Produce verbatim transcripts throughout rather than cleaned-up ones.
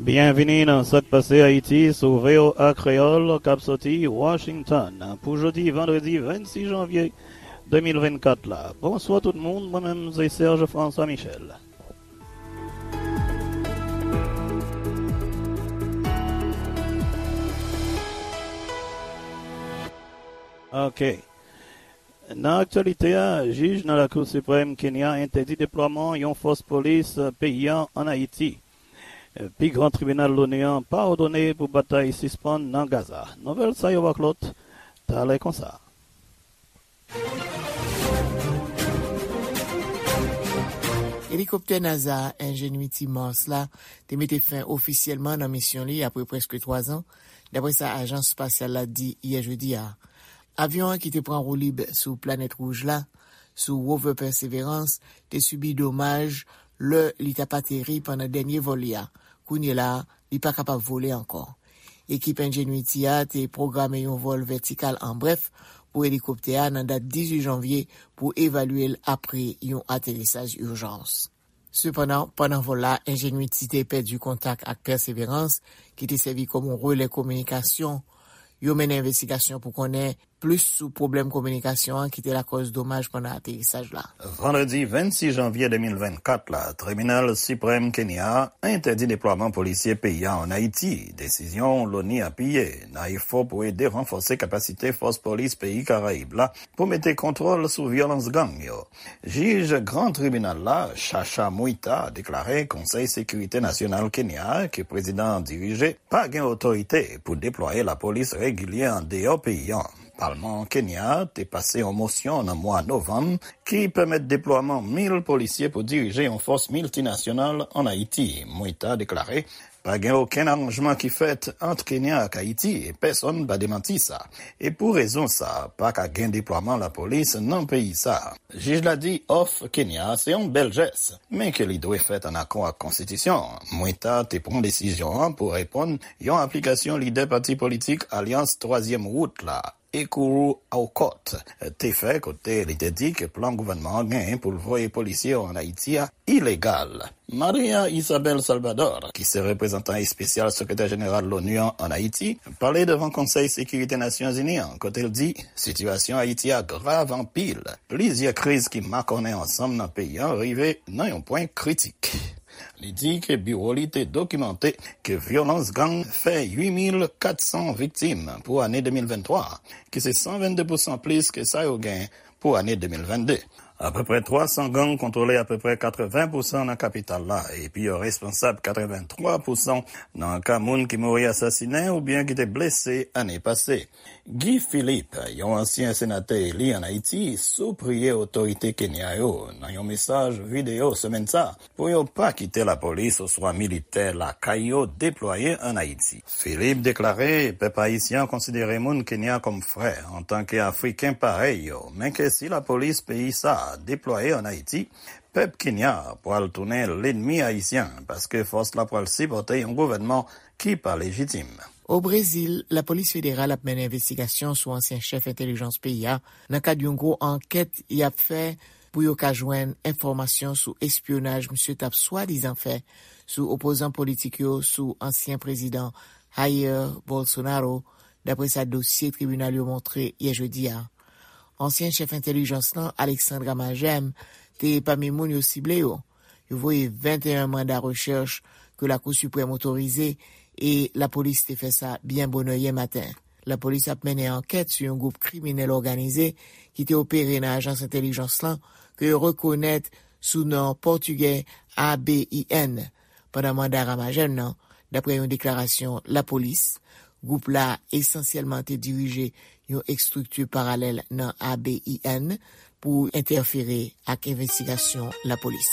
Byenvini nan Sa k Pase Ayiti sou V O A Kreyòl k ap soti Washington pou jodi vandredi vennsis janvye de mil vennkat la. Bonswa tout moun, mwen menm se Serge François Michel. Ok. Nan aktyalite a, jij nan Lakou Siprèm Kenya entèdi deplwaman yon fòs polis peyi a ann Ayiti. Pi gran tribinal Loni an pa òdone pou batay sispann nan Gaza. Nouvèl sa yo ak lòt, talè konsa. Elikoptè NASA Ingenuity Mars la te mete fen ofisyèlman nan misyon li apre prèske twa zan, dapre sa ajans espasyal la di yè jedi a. Avyon an ki te pran woulib sou planèt wouj la, sou rover Perseverance, te sibi domaj lè li t ap ateri pandan dènye vòl li a. Kounye la a, li pa kapab vole ankò. Ekip Ingenuity a te pwograme yon vòl vètikal an brèf pou elikoptè a nan dat dizuit janvye pou evalye l apre yon aterisaj ijans. Sepandan, pandan vòl la, Ingenuity te pèdi kontak ak Perseverance, ki te sèvi kòm yon relè kominikasyon. Yo mennen envestigasyon pou konnen plis sou pwoblèm kominikasyon an ki te lakòz domaj pandan aterisaj la. Vandredi vennsis janvye de mil vennkat la, Tribinal Siprèm Kenya a entèdi deplwaman polisye peyi a ann Ayiti, desizyon Loni apiye nan efò pou ede ranfòse kapasite fòs polis peyi Karayib la pou mete kontwòl sou vyolans gang yo. Jij Gran Tribinal la, Chacha Mwita, deklare Konsèy Sekirite Nasyonal Kenya a, ke prezidan an dirije, pa gen otorite pou deplwaye lapolis regilye andeyò peyi an. Palman Kenya a te pase yon mosyon nan mwa novanm ki pèmèt deplwaman mil polisye pou dirije yon fòs miltinasyonal ann Ayiti. Mwita deklare pa gen okenn aranjman ki fèt ant Kenya ak Ayiti, e pèsonn pa demanti sa. E pou rezon sa, pa ka gen deplwaman lapolis nan peyi sa. Jij la di òf Kenya se yon bèl jès, men ke li dwe fèt ann akò ak konstitisyon an. Mwita te pran desizyon an pou reponn yon aplikasyon lidè pati politik Alyans Twazyèm Wout la, Ekuru Aukot, te fè, kote li te di ke plan gouvènman an genyen pou l voye polisye yo ann Ayiti a ilegal. Maria Isabel Salvador, ki se reprezantan espesyal sekretè jeneral Loni an ann Ayiti, pale devan Konsèy Sekirite Nasyonzini an, kote l di sitiyasyon Ayiti a grav anpil. Plizyè kriz ki makònen ansanm nan peyi an rive nan yon pwen kritik. Li di ke biwo li te dokimante ke vyolans gang fè uit mil kat san viktim pou ane de mil venntwa, ki se san vennde pousan plis ke sa yo gen pou ane de mil vennde. Apeprè twa san gang kontwole apeprè katreven pousan nan kapital la, epi yo responsab katreven twa pousan nan ka moun ki mouri asasinen oubyen ki te blese ane pase. Guy Philippe, yon ansyen senatè eli ann Ayiti, sipriye otorite Kenya yo nan yon mesaj videyo semèn sa a pou yo pa kite lapolis oswa militè lakay yo deplwaye ann Ayiti. Philippe deklare pèp ayisyen an konsidere moun Kenya kòm frè antanke Afriken parèy yo, men ke si lapolis peyi sa a deplwaye ann Ayiti, pèp Kenya a pral tounen lènmi ayisyen, paske fòs la pral sipòte yon gouvènman ki pa lejitim. O Brezil, lapolis federal ap mennen envestigasyon sou ansyen chèf entèlijans peyi a nan kad yon gwo ankèt y ap fè pou yo ka jwenn enfòmasyon sou espyonaj misye t ap swadizan fè sou opozan politik yo sou ansyen prezidan Jair Bolsonaro, dapre sa dosye tribinal yo montre yè jedi a. Ansyen chèf entèlijans lan, Alexandre Ramagem, te pami moun yo sible yo. Yo voye venteyen manda rechèch ke Lakou Siprèm otorize e lapolis te fè sa byen bonè yè maten. Lapolis ap mennen ankèt sou yon gwoup kriminèl òganize ki te opere nan ajans entèlijans lan ke yo rekonèt sou non pòtigè A B I N. Pandan manda Ramagem nan, dapre yon deklarasyon lapolis, gwoup la esansyèlman te dirije yon estrikti paralèl nan A B I N pou entèfere ak envestigasyon lapolis.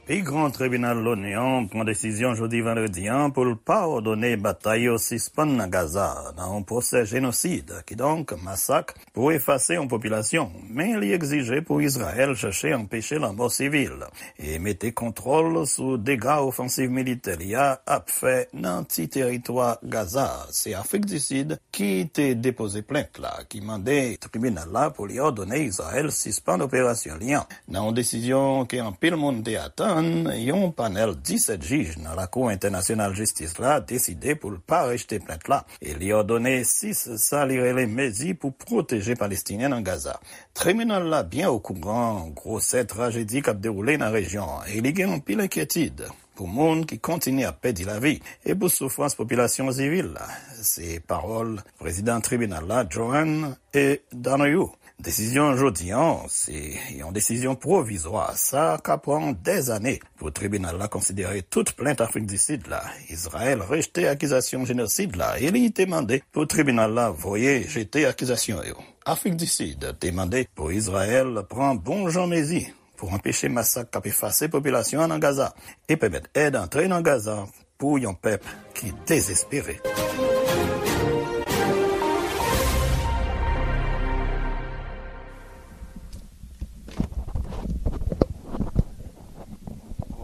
Pi gran tribinal Loni an pran desizyon jodi vandredi an pou l pa òdone batay yo sispann nan Gaza nan yon pwosè jenosid, kidonk masak, pou efase yon popilasyon, men li egzije pou Izrayèl chèche anpeche lanmò sivil e mete kontwòl sou dega ofansiv militè li a ap fè nan ti teritwa Gaza. Se Afrik di Sid ki te depoze plent la, ki mande tribinal la pou li òdone Izrayèl sispann operasyon li an, nan yon desizyon ke anpil moun te atann. Yon panèl disèt jij nan Lakou Entènasyonal Jistis la deside pou l pa rejte plent la e li òdone sis sa li rele mezi pou pwoteje Palestinyen nan Gaza. Tribinal la byen okouran gwosè trajedi k ap dewoule nan rejyon an e li gen anpil enkyetid pou moun ki kontinye ap pèdi lavi e pou soufrans popilasyon sivil la. Se pawòl prezidan tribinal la, Joan E. Donoghue. Desizyon jodi an se yon desizyon pwovizwa. Sa ka pran dèzane pou tribinal la konsidere tout plent Afrik di Sid la. Izrayèl rejte akizasyon jenosid la e li te mande pou tribinal la voye jete akizasyon yo. Afrik di Sid te mande pou Izrayèl pran bon jan mezi pou anpeche masak k ap efase popilasyon an nan Gaza e pèmèt èd antre nan Gaza pou yon pèp ki dezespere.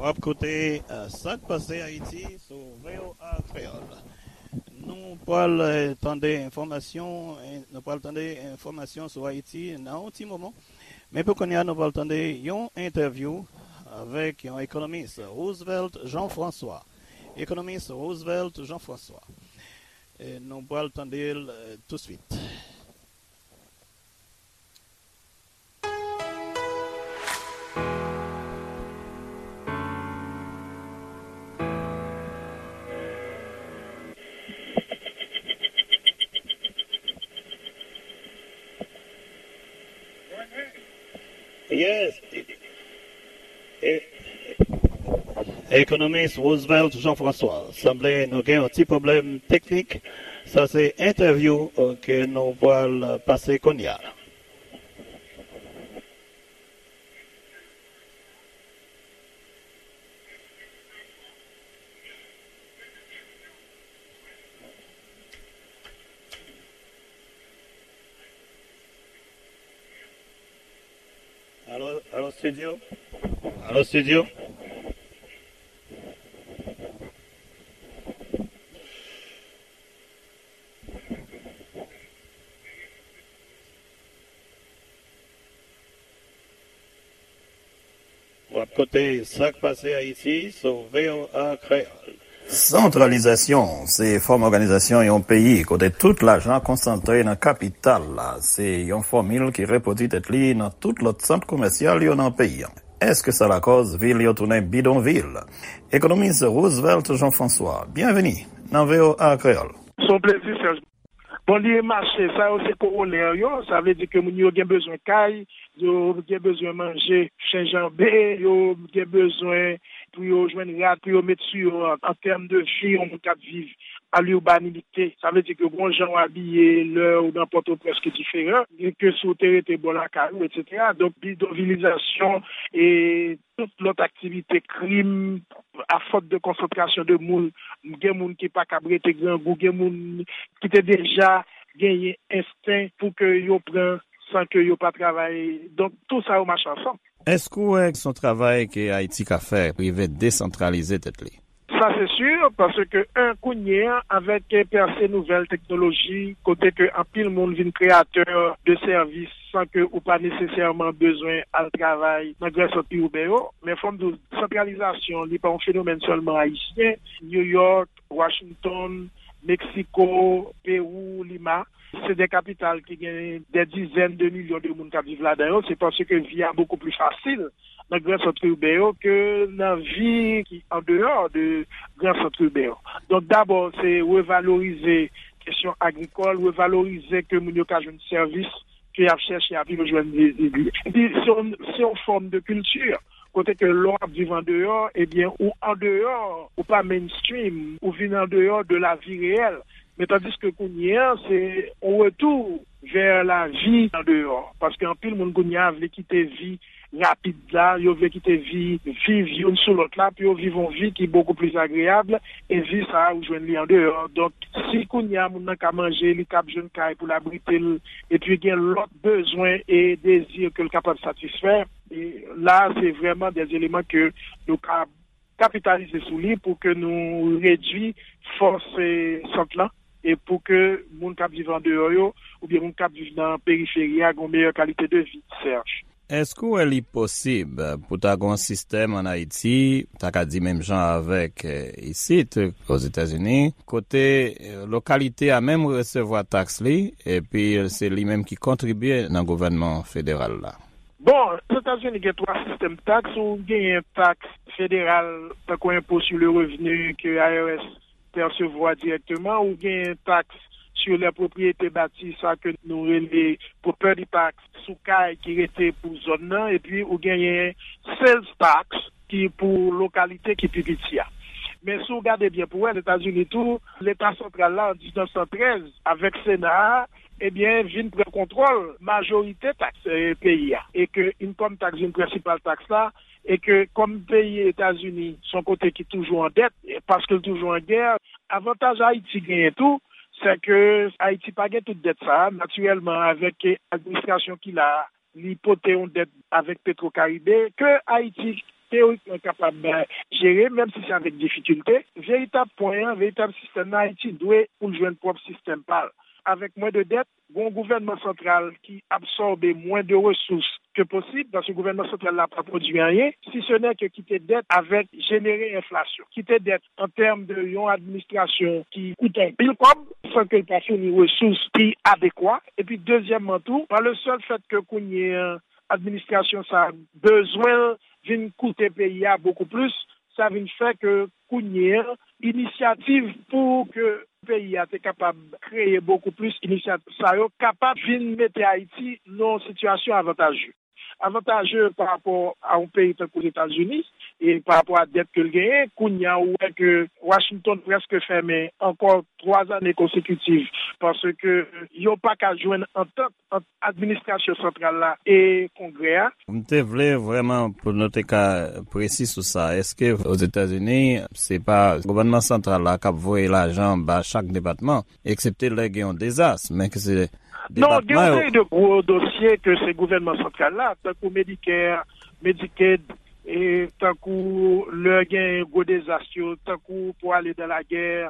W ap koute, eh, Sa k Pase Ayiti sou V O A Kreyòl. Nou pral, eh, tande enfòmasyon, eh, nou pral tande enfòmasyon sou Ayiti nan yon ti moman. Men pou kounye a, nou pral tande yon entèvyou avèk yon ekonomis, Roosevelt Jean-François. Ekonomis Roosevelt Jean-François. E nou pral tande l, eh, touswit. Yes. E-, Ekonomis Roosevelt Jean-François, sanble nou gen yon ti pwoblèm teknik. Sa se entèvyou, eh, ke nou pral pase kounye a. Alo, alo, studio? Alo, studio? W ap koute Sa k Pase Ayiti sou V O A Kreyòl. Santralizasyon se fòm òganizasyon yon peyi kote tout lajan konsantre nan kapital la. Se yon fòmil ki repwodui tèt li nan tout lòt sant komèsyal yo nan peyi an. Èske sa lakòz vil yo tounen bidonvil? Ekonomis Roosevelt Jean-François, byenveni nan V O A Kreyòl. Se yon plezi, Serge. Bon, li mache, sa yo se kowonè yo, sa vle di ke moun yo gen bezwen kay, yo gen bezwen manje, chenjanbe, yo gen bezwen pou yo jwenn rad pou yo met sou yo an, an tèm de vi, yon moun k ap viv a l'urbanité. Sa vle di ke bon jan w abiye lè ou nan Pòtoprens ki diferan, ke si w te rete bò lakay ou, etsetera. Donk, bidonvilizasyon e tout lòt aktivite, krim, a fòt de konsantrasyon de moun, gen moun ki pa kab rete grangou, gen moun ki te deja genyen ensten pou ke yo pran san ke yo pa travay. Donk, tou sa yo mache ansanm. Èske w wè se yon travay ke Ayiti ka fè, rive desantralize tèt li? Sa se si, paske, en, kounye a, avèk pèse nouvèl teknoloji, kote ke anpil moun vin kreyatè de sèvis san ke ou pa nesesèman bezwen al travay nan gran sant pi iben yo. Men fò m di w, santralizasyon, li pa yon fenomèn sèlman ayisyen. New York, Washington, Meksiko, Pewou, Lima, se de kapital ki gen de dizèn de milyon de moun k ap viv ladan yo. Se paske vi a bokou pli fasil nan gran sant iben yo ke nan vi ki andeyò de gran sant iben yo. Donk, dabò, se revalorize kesyon agrikòl, revalorize ke moun yo ka jwenn sèvis ke y ap chèche, epi yo jwenn li. Epi, se yon, se yon fòm de kilti, kote ke lè w ap viv andeyò, ebyen, ou andeyò, ou pa mainstream, ou vin andeyò de la vi reyèl. Men tandiske kounye a, se yon retou vè lavi andeyò. Paske anpil moun kounye a vle kite vi rapid la, yo vle kite vi, viv youn sou lòt la, pou yo viv yon vi ki bokou pli agreyab, e vi sa a, ou jwenn li andeyò. Donk, si kounye a moun nan ka manje, li kab jwenn kay pou l abrite l, epi gen lòt bezwen e dezi ke l kapab satisfè, e la, se vrèman de eleman ke nou ka kapitalize sou li pou ke nou redui fòs, e, sant lan, e pou ke moun k ap viv andeyò yo, oubyen moun k ap viv nan periferi a, gen yon meyè kalite de vi, Serge. Èske w wè li posib pou ta gen yon sistèm ann Ayiti, ta ka di menm jan avèk, eh, isit, Ozetazini, kote, eh, lokalite a menm resevwa taks li, epi se li menm ki kontribye nan gouvènman federal la? Bon, Ozetazini gen twa sistèm taks. Ou genyen taks federal, tankou enpo sou le revni ke I R S pèsevwa dirèkteman, ou genyen taks sur les propriétés bâties, sa ke nou rele property tax, sou kay ki rete pou zòn nan, epi ou genyen sales tax ki pou lokalite ki pi piti a. Men si w gade byen pou wè, Etazini tou, Leta santral la, an diznèf san trèz, avèk Sena a, ebyen, vin pran kontwòl majorite taks, eh, peyi a. E ke income tax vin prensipal taks la, e ke kòm peyi Etazini se yon kote ki toujou an dèt, e paske l toujou an gè, avantaj Ayiti genyen tou, se ke Ayiti pa gen tout dèt sa a. Natirèlman, avèk administrasyon ki la a, li pote yon dèt avèk Petro Caribe ke Ayiti teyorikman kapab, eh, jere, menm si se avèk difikilte. Veritab pwen an, veritab sistèm nan, Ayiti dwe pou l jwenn pwòp sistèm pa l. Avèk mwen de dèt, gon gouvènman santral ki absòbe mwen de resous ke posib, paske gouvènman santral la pa pwodui anyen, si se nè ke kite dèt avèk jenere enflasyon. Kite dèt an tèm de yon administrasyon ki koute anpil kòb, san ke l pa founi resous ki adekwa. Epi dezyèmman tou, pa le sèl fèt ke kounye an, administrasyon sa a bezwen vin koute peyi a bokou plis, sa vin fè ke kounye an, inisyativ pou ke peyi a te kapab kreye bokou plis inisyativ sa yo, kapab vin mete Ayiti nan yon sitiyasyon avantaje. Avantaje pa rapò a yon peyi tankou Etazini, e pa rapò a dèt ke l genyen, kounye a ou wè ke Washington prèske fèmen ankò twa zane konsekitiv, paske yo pa ka jwenn antant ant administrasyon santral la e Kongrè a. M te vle vrèman pou nou te ka presi sou sa. Èske Ozetazini, se pa gouvènman santral la k ap voye lajan ba chak depatman, eksepte lè gen yon dezas, men ke se... Non, gen yon seri de gwo dosye ke se gouvènman santral la, tankou Medicare, Medicaid, e tankou lè gen gwo dezas yo, tankou pou ale dan lagè,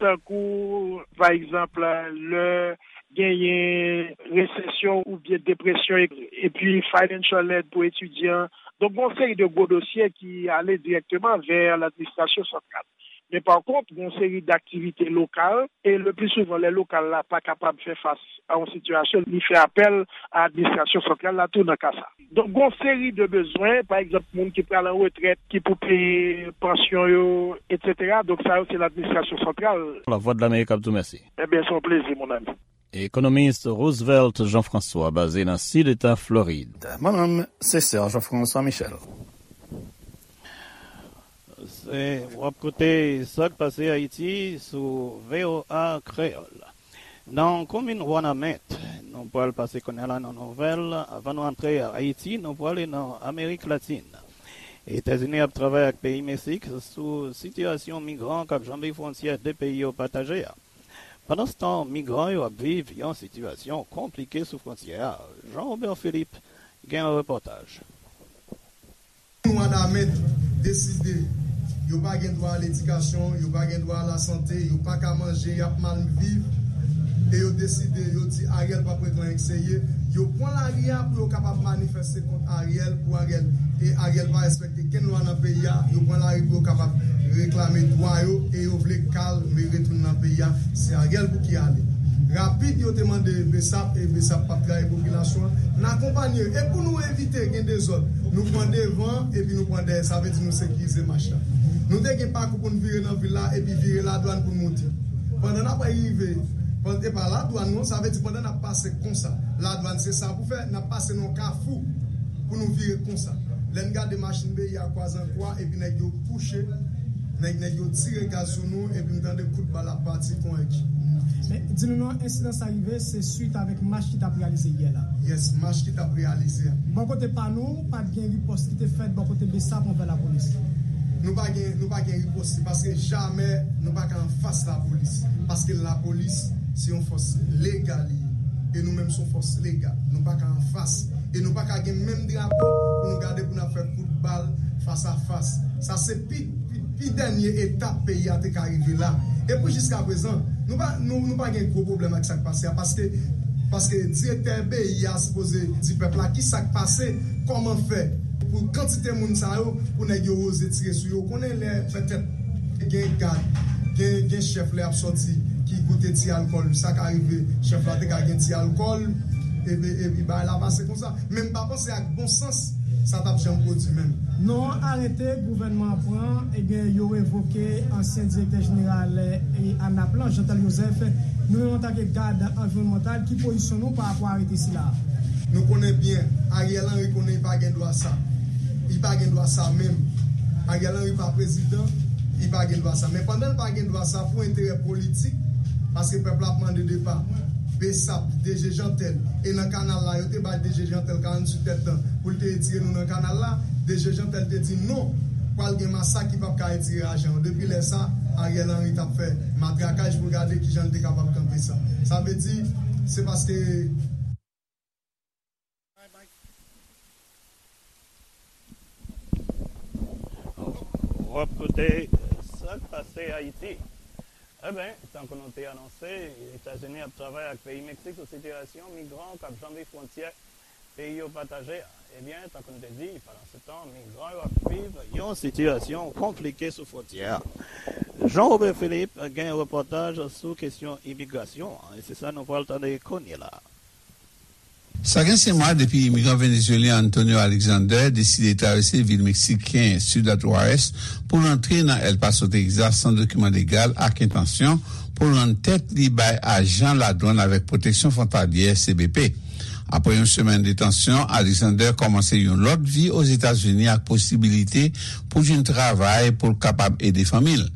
tankou, pa egzanp, lè genyen resesyon oubyen depresyon, e, epi financial aid pou etidyan. Donk, gen yon seri de gwo dosye ki ale dirèkteman vè ladministrasyon santral. Men pa kont, gen yon seri daktivite lokal, e le pli souvan, lè lokal la pa kapab fè fas a yon sitiyasyon, li fè apèl a administrasyon santral la tou nan ka sa. Donk, gen yon seri de bezwen, pa egzanp, moun ki pral an retrèt, ki pou peye pansyon yo, etsetera. Donk, sa yo, se ladministrasyon santral. Lavwadlamerik ap di w mèsi. Ebyen, se yon plezi, mon ami. Ekonomis Roosevelt Jean-François, baze nan sid eta Florid. Mwen menm, se Sè Jean-François Michel. Se, w ap koute Sa k Pase Ayiti sou V O A Kreyòl. Nan komin Wanament, nou pral pase kounye a la nan nouvèl. Avan nou antre Ayiti, nou prale nan Amerik Latin. Etazini ap travay ak peyi Meksik sou sitiyasyon migran k ap janbe fwontyè de peyi yo pataje a. Pandanstan, migran yo ap viv yon sitiyasyon konplike sou fwontyè a. Jean Robert Philippe gen yon repòtaj. Wanament deside yo pa gen dwa a ledikasyon, yo pa gen dwa a lasante, yo pa ka manje, y ap mal viv, e yo deside, yo di Ariel p ap ret lan ek serye. Yo pran lari a pou yo kapab manifeste kont Ariel, pou Ariel, e Ariel pa respekte kenn lwa nan peyi a. Yo pran lari pou yo kapab reklame dwa yo, e yo vle kalme, retounen nan peyi a. Se Ariel pou ki ale. Rapid, yo te mande Besap, e Besap p ap trayi popilasyon an. N akonpanye yo. E pou nou evite gen dezòd, nou pran devan, epi nou pran dèyè. Sa vle di nou sekirize mach la. Nou te gen pakou pou n vire nan vil la, epi vire Ladwàn pou n moute. Pandan n ap rive, pandan, e pa Ladwàn non, sa vle di pandan n ap pase konsa, Ladwàn se sa pou fè, n ap pase nan yon kafou pou nou vire konsa. Lè n gade machin B I A kwaze an kwa, epi nèg yo kouche, nèg, nèg yo tire gaz sou nou, epi m tande kout bal ap pati kon èk. Men, di nou non, ensidan sa rive, se swit avèk mach ki t ap reyalize yè la. Yes, mach ki t ap reyalize a. Bò kote pa nou, pa t gen ripòs ki te fèt bò kote Besap anvè lapolis. Nou pa gen, nou pa gen ripòs, se paske jamè nou pa ka anfas lapolis. Paske lapolis, se yon fòs legal li ye. E nou menm, se yon fòs legal. Nou pa ka anfas. E nou pa ka gen menm drapo pou nou gade pou n ap fè kout bal fas a fas. Sa se pi, pi, pi dènye etap peyi a te ka rive la. E pou jiskaprezan, nou pa, nou, nou pa gen gwo pwoblèm ak sa k pase a, paske Paske direktè peyi a sipoze di pèp la kisa k pase, kòman fè pou kantite moun sa yo, pou nèg yo oze tire sou yo. Ou konnen lè petèt gen gad, gen, gen chèf lè y ap sòti ki goute ti alkòl, sa ka rive chèf la te ka gen ti alkòl, epi, epi bagay la pase konsa. Men m pa panse ak bon sans sa t ap janm pwodui menm. Non, arete gouvènman an pran, ebyen, yo revoke ansyen direktè jeneral, e, ANAP lan, Jeantel Joseph. Nou menm antanke gad anviwònmantal, ki pozisyon nou pa rapò a arete sila a? Nou konnen byen, Ariel Henry konnen li pa gen dwa sa. Li pa gen dwa sa menm. Ariel Henry pa prezidan, li pa gen dwa sa. Men pandan l pa gen dwa sa, pou enterè politik, paske pèp la ap mande depa, BSAP, DG Jeantel, e nan kanal la, yo te bay DG Jeantel karanntuit èdtan pou l te retire nou nan kanal la, DG Jeantel te di non, pral gen masak ki p ap ka retire ajan yo. Depi lè sa, Ariel Henry t ap fè matrakaj pou l gade kijan l te kapab kanpe sa. Sa vle di, se paske W ap koute Sa k pase Ayiti. Eben, tankou nou te anonse, Etazini ap travay ak peyi Meksik sou sitiyasyon migran k ap janbe fwontyè peyi yo pataje a. Ebyen, tankou n te di, pandansetan, migran yo ap viv yon sitiyasyon konplike sou fwontyè a. Jean Robert Philippe gen repòtaj sou kesyon imigrasyon an, e se sa nou pral tande kounye la a. Sa gen senk mwa depi imigran venezuelyen Antonio Alexander deside travèse vil meksiken Ciudad Juárez pou l antre nan El Paso, Texas, san dokiman legal ak entansyon pou l rann tèt li bay ajan ladwann avèk pwoteksyon fwontalyè, C B P. Apre yon semèn detansyon, Alexander kòmanse yon lòt vi Ozetazini ak posibilite pou jwenn travay pou l kapab ede fanmi l.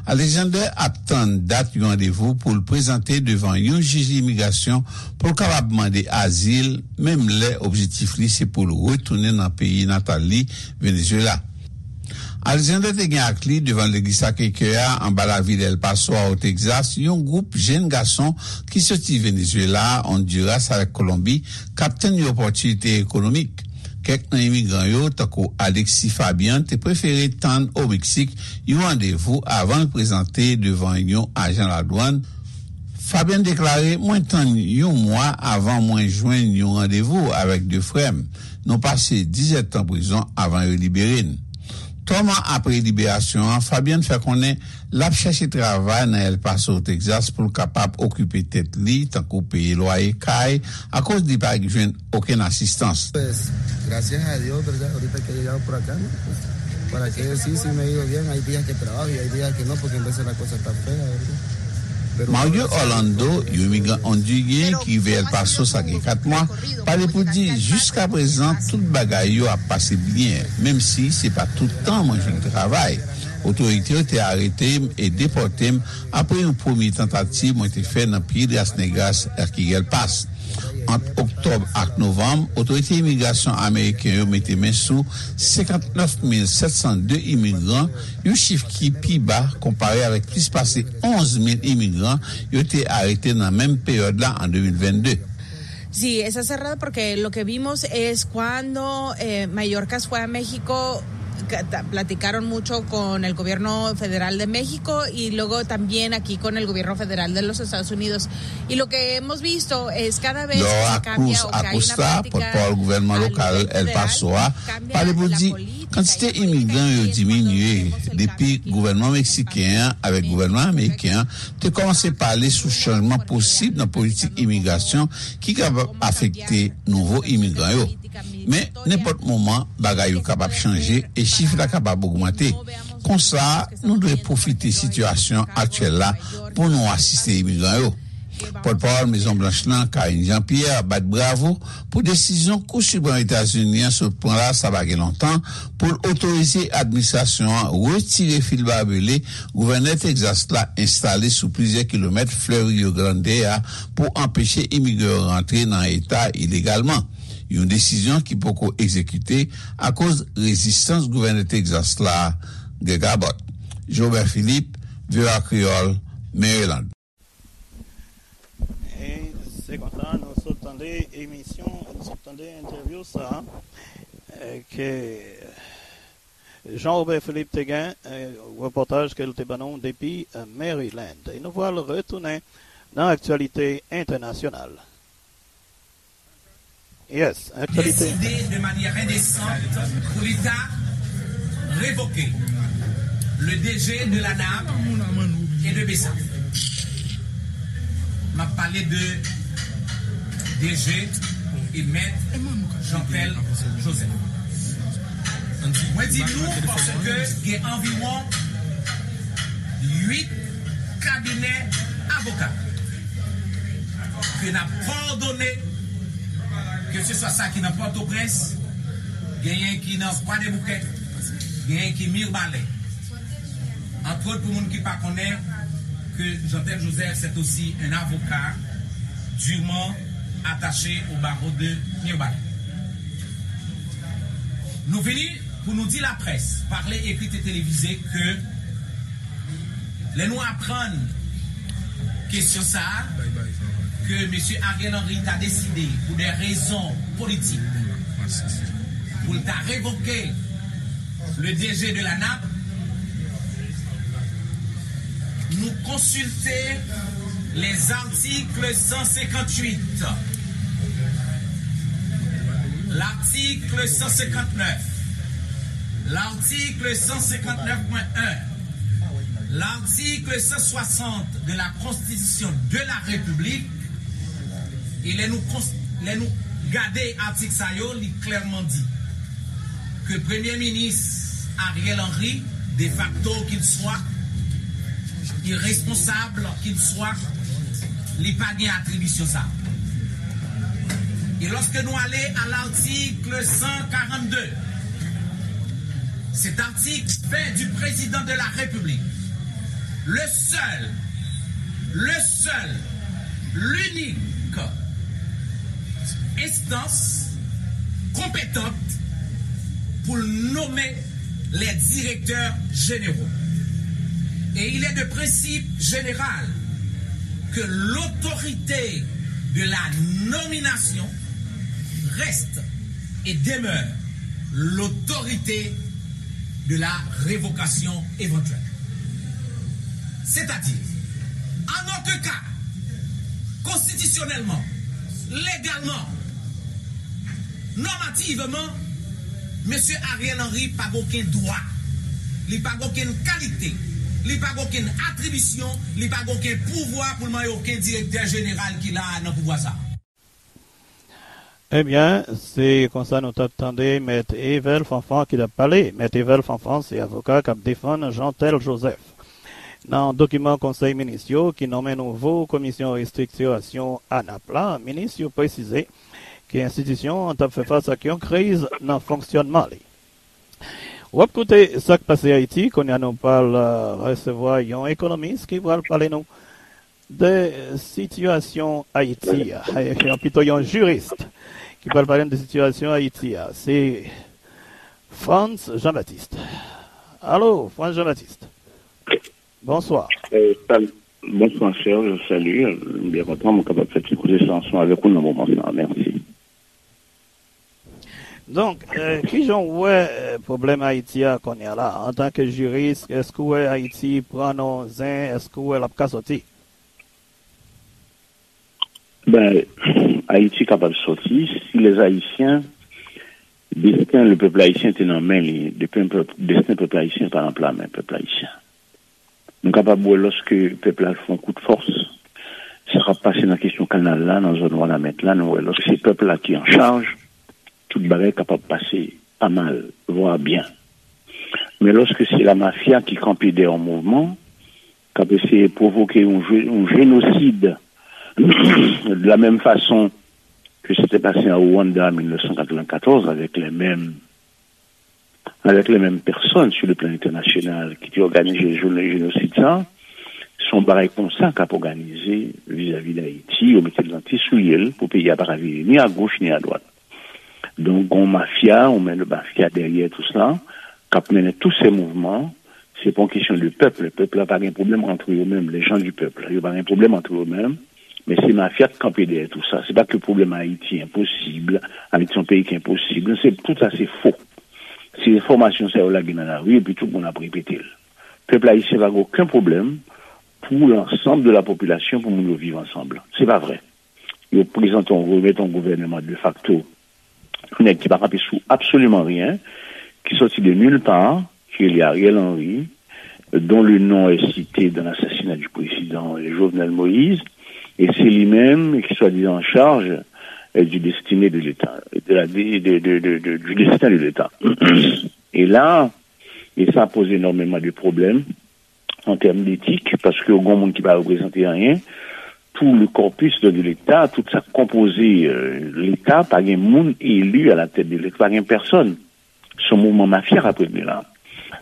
Alexander ap tann dat yon randevou pou l prezante devan yon jij imigrasyon pou l kapab mande azil, menm lè objektif li se pou l retounen nan peyi natal li, Venezuela. Alexander te gen ak li devan legliz Sacré-Cœur a anba lavil El Paso a o Texas yon gwoup jenn gason ki soti Venezuela, Honduras avèk Kolonbi k ap tann yon opòtinite ekonomik. Kèk nan imigran yo, tankou Alexis Fabian, te prefere tann o Meksik yon randevou avan l prezante devan yon ajan ladwann. Fabian deklare, mwen tann yon mwa avan mwen jwenn yon randevou avèk de frè m. Nou pase diz èdtan prizon avan yo libere n. Twa mwa apre liberasyon an, Fabian fè konnen l ap chèche travay nan El Paso, Texas, pou l kapab okipe tèt li, tankou peye lwaye kay, akoz li pa jwenn okenn asistans. Pues, gracias a Dios, ¿verdad? Ahorita que he llegado por acá, ¿no? Pues, ¿para qué decir si me ha ido bien? Hay días que trabajo y hay días que no, porque en veces la cosa está fea, ¿verdad? Mario Orlando, yon imigran ondiryen ki rive El Paso sa gen kat mwa, pale pou di, jiskaprezan, tout bagay yo ap pase byen, menm si se pa tout tan mwen jwenn travay. Otorite yo te arete m e depòte m apre yon premye tantativ mwen te fè nan Piedras Negras, Las Quiguelpas. Ant oktòb ak novanm, otorite imigrasyon ameriken yo mete men sou senkantnèf mil sèt san de imigran, yon chif ki pi ba konpare avèk plis pase onz mil imigran yo te arete nan menm peryòd la an de mil vennde. Sí, está cerrado porque lo que vimos es cuando eh, Mallorca fue a México, platicaron mucho con el gobierno federal de México y luego también aquí con el gobierno federal de los Estados Unidos. Y lo que hemos visto es cada vez que se cambia o que hay una política al nivel federal, cambia la política. Laura Cruz Acosta, pòtpawòl gouvènman lokal El Paso a, pale pou di kantite imigran yo diminye depi gouvènman meksiken an avèk gouvènman ameriken an te kòmanse pale sou chanjman posib nan politik imigrasyon ki kapab afekte nouvo imigran yo. Men, nenpòt moman, bagay yo kapab chanje e chif la kapab ogmante. Konsa, nou dwe pwofite sitiyasyon aktyèl la pou nou asiste imigran yo. Pòtpawòl Mezon Blanch lan, Karine Jean-Pierre, bat bravo pou desizyon Kou Siprèm Etazini an sot pran la sa pa gen lontan pou l otorize administrasyon an retire fil babele gouvènè Tegzas la enstale sou plizyè kilomèt flèv Rio Grande a pou anpeche imigran yo rantre nan eta ilegalman, yon desizyon ki poko egzekite akoz rezistans gouvènè Tegzas la, Greg Abbott. Jobert Philippe, V O A Kreyòl, Maryland. E se konsa nou sot tande emisyon, nou sot tande entèvyou sa a, e, ke Jean Robert Philippe te gen, e, repòtaj ke l te ban nou depi, e, Maryland. E nou pral retounen nan aktyalite entènasyonal. Yes, aktyalite. Décidé de manière indécente pour l'État révoquer le D G de la NAP et de BESAP. M ap pale de D G e mèt Jeantel Joseph. Mwen di nou paske gen anviwon uit kabinè avoka ke n ap kowòdone, keseswa sa ki nan Pòtoprens, genyen ki nan Kwadèboukè, genyen ki Mibalè. Antwòt, pou moun ki pa konnen, ke Jeantel Joseph, c'est aussi un avocat durement attaché au barreau de Mirebalais. Nou vini pou nou di laprès, pale, ekri e televize, ke lè nou aprann kesyon sa a, ke mesye Ariel Henry ta deside, pou de rezon politik, pou l ta revoke le D G de la NAP, nou konsilte les articles cent cinquante-huit, l'article cent cinquante-neuf, l'article cent cinquante-neuf point un, l'article cent soixante de la Constitution de la République, e lè nou, lè nou gade atik sa yo, li klèman di ke Premye Minis Ariel Henry, de facto qu'il soit, irresponsable qu'il soit, li pa gen atribisyon sa. E lòske nou ale a l'article cent quarante-deux, cet article fait du président de la République le seul, le seul, l'unique instance compétente pour nommer les directeurs généraux. Et il est de principe général que l'autorité de la nomination reste et demeure l'autorité de la révocation éventuelle. C'est-à-dire, en aucun cas, konstitisyonèlman, legalman, nòmativman, mesye Ariel Henry pa gen okenn dwa, li pa gen okenn kalite, li pa gen okenn atribisyon, li pa gen okenn pouvwa pou l manyen okenn direktè jeneral ki la a nan pouvwa sa a. Ebyen, se konsa nou t ap tande Mèt Evel Fanfan ki t ap pale. Mèt Evel Fanfan se avoka k ap defann Jeantel Joseph. Nan dokiman Konsèy Minis yo ki nonmen nouvo Komisyon Restriktirasyon a nap la, minis yo presize ke enstitisyon an t ap fè fas ak yon kriz nan fonksyònman li. W ap koute Sa k pase Ayiti, kounye a nou pral, euh, resevwa yon ekonomis ki pral pale nou de sitiyasyon Ayiti a, yon, pito yon jiris ki pral pale n de sitiyasyon Ayiti a, se Frantz Jean-Baptiste. Alo, Frantz Jean-Baptiste. Bonswa. Eh, sal-, bonswa, Serge, salut. M byen kontan, mwen kapab fè ti koze sa ansanm avèk ou nan moman sa. Mèsi. Donk, eh, kijan w wè, eh, pwoblèm Ayiti a kounye a la? Antanke jiris, èske w wè Ayiti pran nan zen? Èske w wè l ap ka sòti? Ben, Ayiti kapab sòti si les Haïtiens, desten le pèp ayisyen te nan men li, desten pèp, desten pèp ayisyen pa nan pla men pèp ayisyen. Nou kapab wè lòske pèp la fè yon kout fòs, sa k ap pase nan kesyon kanal la, nan zòn Wanament la, nou wè lòske se pèp la ki an chaj, tout bagay kapab pase pa mal, vwa byen. Men lòske se la mafya ki kanpe dèyè yon mouvman, k ap eseye pwovoke yon je-, yon jenosid, de la menm fason ke se te pase an Rwanda an mil nèf san katrevennkatòz, avèk les mêmes avec les mêmes personnes sur le plan international ki te òganize jounen jenosid sa, se yon bagay konsa k ap òganize vizavi Dayiti, yo mete l nan ti soulye l pou peyi a pa ka vire ni a goch ni a dwat. Donk, gon mafya, ou menm mafya dèyè tout sa, k ap mennen tout se mouvman, se pa yon kesyon de pèp, pèp la pa gen pwoblèm antre yo menm, les gens du peuple, yo pa gen pwoblèm antre yo menm, men se mafya k kanpe dèyè tout sa. Se pa ke pwoblèm Ayiti enposib, Ayiti se yon peyi ki enposib, non, se, tout sa se fo. Se enfòmasyon sa yo lage nan lari epi tout moun ap repete l. Pèp ayisyen pa gen okenn pwoblèm pou lansanm de la popilasyon, pou moun yo viv ansanm. Se pa vre. Yo prezante yon, remèt yon gouvèneman de facto nèg ki pa kanpe sou absoliman rien, ki sòti de nulle part, ki rele Ariel Henry, dont le nom est cité dans l'assassinat du président Jovenel Moïse, et c'est lui-même qui soi-disant en charge euh, du destiné de l'État, de la, de, de, de, de, de, du destin de l'État. Et là, et ça pose énormément de problèmes en termes d'éthique, paske yon moun ki pa reprezante anyen, tout le corpus de l'État, tout sa k konpoze euh, l'État, pa gen moun eli à la tête de l'État, pa gen pèsonn. Se yon mouvman mafya k ap regle la.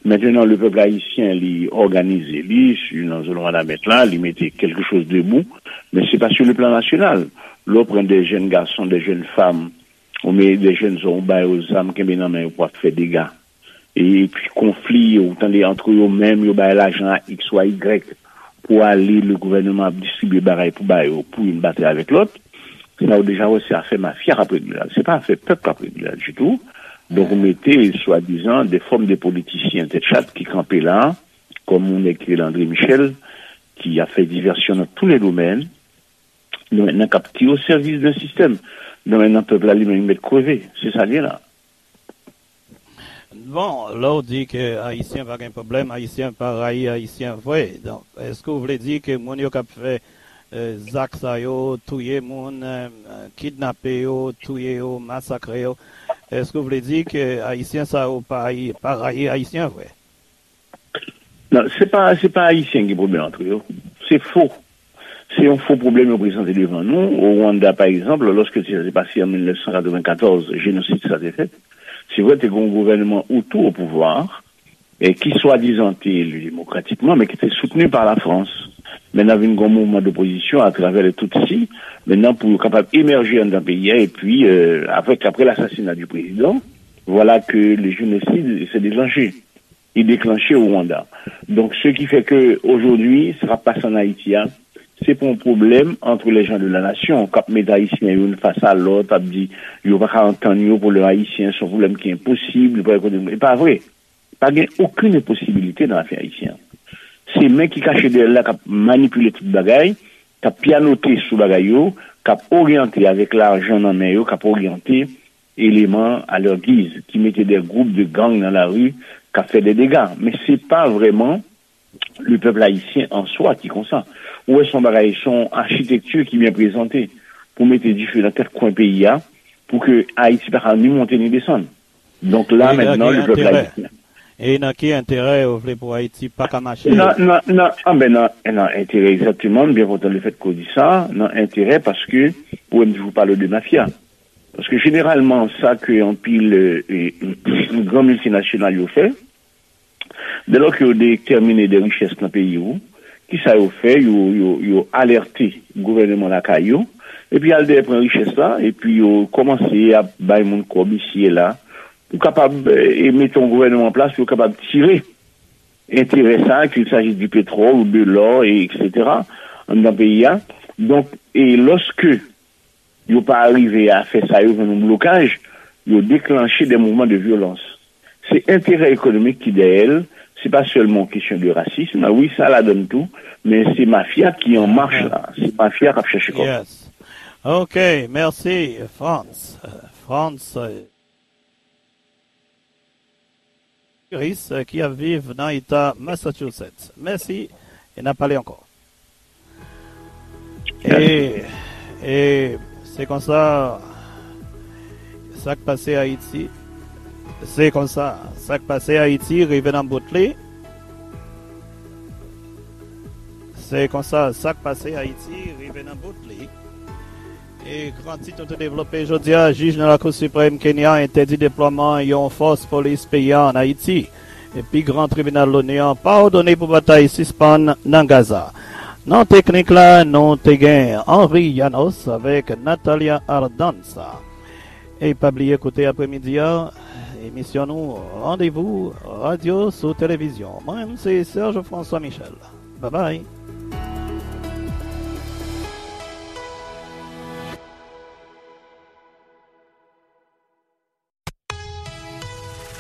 Maintenant, le peuple haïtien, li òganize li, si nan zòn Wanament la, li mete quelque chose debout, mais c'est pas sur le plan national. Lè w pran des jeunes garçons, des jeunes femmes, ou mete des jeunes hommes, ou ba yo zam, kenbe nan men yo pou ap fè dega. E pi konfli, ou tande antre yo menm, yo bay lajan a X ou a Y pou ale, le gouvènman ap distribye bagay pou ba yo, pou youn batay avèk lòt. Sa ou deja wè se afè mafya k ap regle la. Se pa afè pèp k ap regle la ditou. Donk ou mete swadizan de fòm de politisyen tèt chat ki kanpe la, kòm yon nèg ki rele André Michel, ki ap fè divèsyon nan tous les domaines, donk nan k ap tire o sèvis de sistèm. Donk nan pèp la li menm li mèt kreve. Se sa l ye la. Bon, lè w di ke Ayisyen pa gen pwoblèm, Ayisyen pa rayi Ayisyen vre. Donk, èske w vle di ke moun yo k ap fè zak sa yo, touye moun, kidnape yo, touye yo, masakre yo, èske w vle di ke Ayisyen sa yo pa pa rayi Ayisyen vre? Non, se pa se pa Ayisyen ki gen pwoblèm antre yo. Se fo. Se yon fo pwoblèm yo prezante devan nou. O Rwanda, pa egzanp, lòske sa te pase an mil nèf san katreven katòz, jenosid sa te fèt, se vre te gen yon gouvènman Hutu o pouvwa, e ki swadizan te eli demokratikman, men ki te soutni pa Lafrans. Mennan vin gen yon mouvman dopozisyon atravè le Tutsi, mennan pou yo kapab emèje anndan peyi a, epi euh, avèk apre lasasina di prezidan, vwala ke le jenosid se deklanche. Li deklanche o Rwanda. Donk, ce qui fait que aujourd'hui, sa k ap pase an Ayiti a, se pa yon pwoblèm entre les gens de la nation k ap met Ayisyen youn fas a lòt, ap di yo pa ka antann yo pou lè Ayisyen, se yon pwoblèm ki enposib, li pa rekonèt. E pa vre. Pa gen okenn enposibilite nan afè ayisyen an. Se men ki kache dèyè l la k ap manipile tout bagay, k ap pyanote sou bagay yo, k ap oryante avèk lajan nan men yo, k ap oryante eleman a lè giz, ki mete de gwoup de gang nan lari, k ap fè de dega. Men se pa vrèman le pèp ayisyen an swa ki konsa. Ou wè se yon bagay, se yon achitekti ki byen prezante pou mete dife nan kèk kwen peyi a, pou ke Ayiti pa ka ni monte ni desann. Donk la mentnan le pèp ayisyen. E nan ki enterè yo vle pou Ayiti pa ka mache? Nan, nan, nan, anben, nan, nan enterè egzakteman, m byen kontan le fèt ke w di sa, nan enterè paske ou wè m toujou pale de mafya. Paske jeneralman, sa ke anpil euh, euh, gran miltinasyonal yo fè, dèlò ke yo detèmine de richès nan peyi ou, kisa yo fè? Yo, yo, yo alète gouvènman lakay yo, epi al dèyè pran richès la, epi yo kòmanse ap bay moun kòb isi e la, pou kapab e mete yon gouvènman an plas pou yo kapab tire enterè sa, qu'il s'agisse du pétrole ou de l'or, et cetera, anndan peyi a. Donk, e lòske yo pa rive a fè sa, yo jwenn yon blokaj, yo deklanche de mouvman de vyolans. Se enterè ekonomik ki dèyè l, se pa sèlman yon kesyon de rasism, wi, sa ladann tou, men se mafya ki an mach la, se mafya k ap chèche kòb. Yes. Ok, mèsi, Frantz. Frantz, Iris, ki ap viv nan eta Massachusetts. Mèsi, e n ap pale ankò. E, e se konsa sa k pase Ayiti. Se konsa sa k pase Ayiti rive nan bout li. Se konsa sa k pase Ayiti rive nan bout li. E gran tit nou te devlope jodi a, jij nan Lakou Siprèm Kenya entèdi deplwaman yon fòs polis peyi a ann Ayiti. Epi gran tribinal Loni an padone pou batay sispann nan Gaza. Nan teknik la, nou te gen Henry Yanos avèk Natalia Ardanza. E pa bliye koute apremidi a, emisyon nou Randevou Radyo sou Televizyon. Mwen menm se Serge François Michel. Babay.